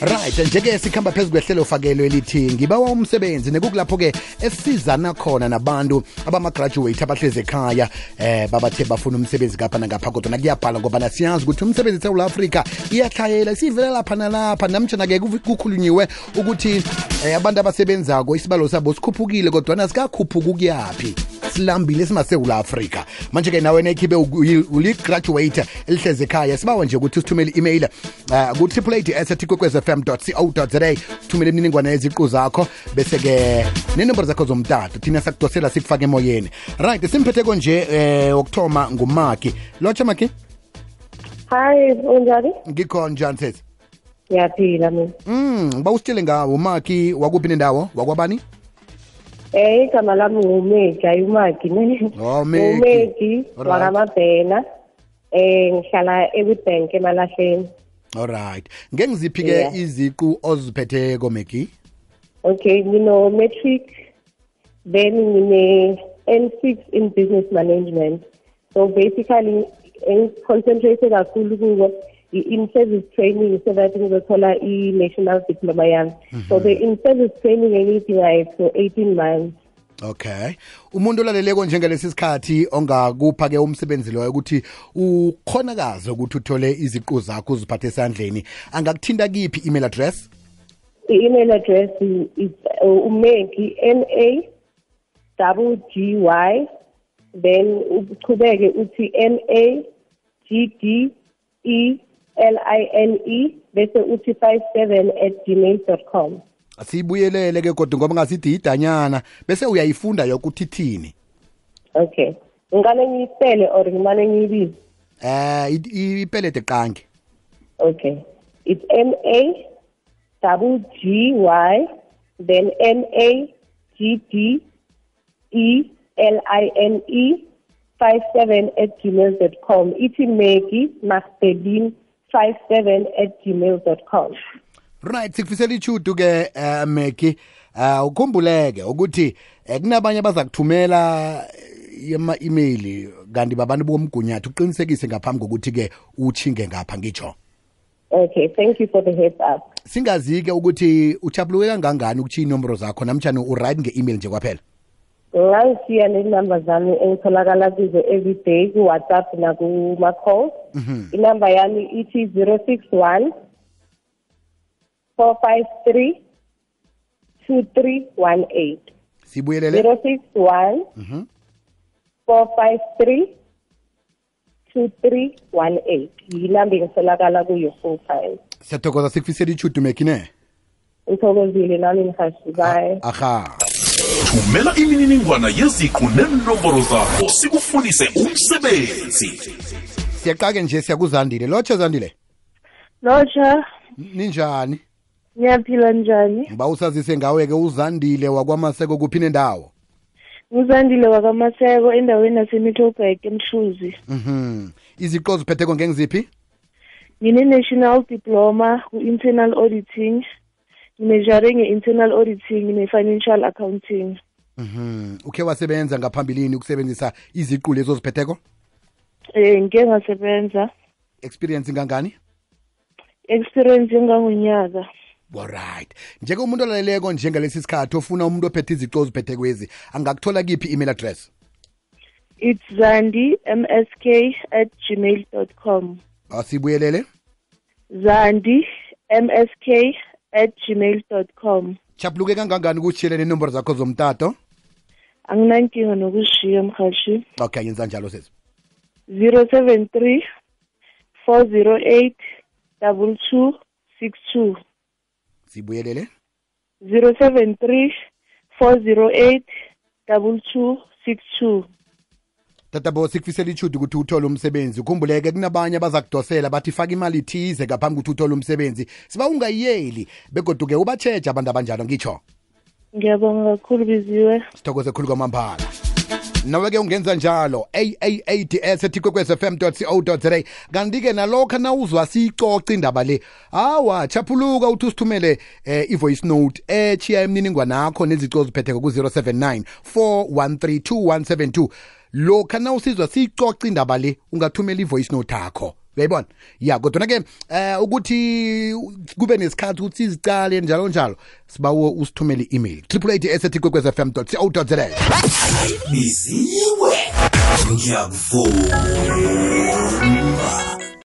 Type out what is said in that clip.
Right, njeke sikhamba phezulu kwehlelo fakelo elithi ngibawa umsebenzi nekukulapho ke esizana khona nabantu abama-graduate abahleze ekhaya babathe bafuna umsebenzi ngapha nangapha kodwa kuyabhala ngoba siyazi ukuthi umsebenzi eSouth Africa iyahlayela sivela lapha nalapha namtshana-ke kukhulunyiwe ukuthi abantu abasebenzako isibalo sabo sikhuphukile kodwa nasikakhuphuka ukuyaphi silambile simasewula Afrika manje-ke nawe nekhibe uli-graduate elihleze ekhaya sibawa nje ukuthi usithumele i-email ku-888@kwekwezfm.co.za uthumele imininingwane yeziqu zakho bese-ke nenombolo zakho zomtato thina sakudosela sikufake emoyeni. Right, simphetheko nje wokuthoma ngumaki lotsha maki. Hi, unjani? Ngikho njani sesi? Ngiyaphila mina. Ngiba usitshele ngawo umaki wakuphi nendawo wakwabani? Igama lami ngumeki, ayumaki ne. Oh, Meki. Umeki wakamabhena. Ngihlala eWitbank eMalahleni. Alright. Ngengiziphi-ke iziqu oziphetheko Meki? Okay, matric, then N6 in business management. So basically, concentrated kakhulu kuwo in-service training so that ngizothola i-national diploma yami. So the in-service training engiyidingayo for 18 months. Okay. Umuntu olaleleko njengalesi sikhathi ongakupha-ke umsebenzi loyo ukuthi ukhonakaze ukuthi uthole iziqu zakho uziphathe esandleni angakuthinta kiphi email address? I-email address is umeki MAGGY then uchubeke uthi MAGDELINE bese uthi 57@gmail.com. Asibuyelele ke kodwa ngoba ngasithi idanyana bese uyayifunda yoke ukuthi ithini. Okay. Ngane ngiyipele or ngimane ngiyibize? Ipelete qangi. Okay. It's MAGGY then MAGDELINE 57@gmail.com. Ithi Maggie Magdalene 57@gmail.com. Right, sikufisela ichudu ke Meki ukhumbuleke ukuthi kunabanye abazakuthumela ama-email kanti babantu bomgunyathi uqinisekise ngaphambi kokuthi ke uchinge ngapha ngitsho. Okay, thank you for the heads up. Singazi-ke ukuthi uchapuluke kangangani ukuthi inombolo zakho namtshani uright nge-email nje kwaphela? Ngangisiya nenumber zami engitholakala kuzo everyday ku-WhatsApp nakuma-call. Inumber yami ithi 061 453 2318. Sibuyelele 061 453 2318. Yinamba engitholakala kuyo full time. Siyathokoza sikufisela ichudu Meki ne. Ngithokozile nami ngihashi bye. Aha. Thumela imininingwana yeziqu nenombolo zakho sikufundise umsebenzi. Siyaqake nje siyakuzandile. Lotsha Zandile. Lotsha. Ninjani? Ngiyaphila njani? Ngiba usazise ngawe-ke uZandile wakwaMaseko kuphi nendawo? UZandile wakwaMaseko endaweni yaseMiddelburg eMhluzi. Iziqu oziphetheko ngengiziphi? Ngine-national diploma ku-internal auditing. Ngine-jare nge-internal auditing ne-financial accounting. Ukhe wasebenza ngaphambilini ukusebenzisa iziqu lezo ziphetheko? Ngike ngasebenza. Experience ngangani? Experience engangonyaka. Alright. Njeke umuntu olaleleko njengalesi sikhathi ofuna umuntu ophethe iziqu oziphethekwezi angakuthola kiphi email address? It's zandimsk@gmail.com. Asibuyelele? zandimsk@gmail.com. Chapuluke kangangani ukutshiyele nenombolo zakho zomtato? Anginankinga nokushiya mhashi. Okay, yenza njalo sesi. 073 408 2262. Sibuyelele? 073 408 2262. Tatabo sikufisela ichudu ukuthi uthole umsebenzi. Ukhumbuleke kunabanye abazakudosela bathi faka imali ithize ngaphambi ukuthi uthole umsebenzi. Siba ungayiyeli begoduke ubatsheje abantu abanjalo ngitsho. Ngiyabonga kakhulu biziwe. Sithokoze khulu kwamambala. Nawe-ke ungenza njalo aads@kwekwezfm.co.za kanti-ke nalokho nawuzwa siyicoca indaba le hawa chaphuluka uthi usithumele i-voice note echiya imininingwane yakho nezico oziphetheko ku-079 413 2172 lokha nawusizwa siyicoca indaba le ungathumela i-voice note yakho uyayibona ya kodwa ke ukuthi kube nesikhathi ukuthi izicale njalo njalo sibawo usithumele i-email triple8@kwekwezfm.co.za biziwe ngiyakuvuma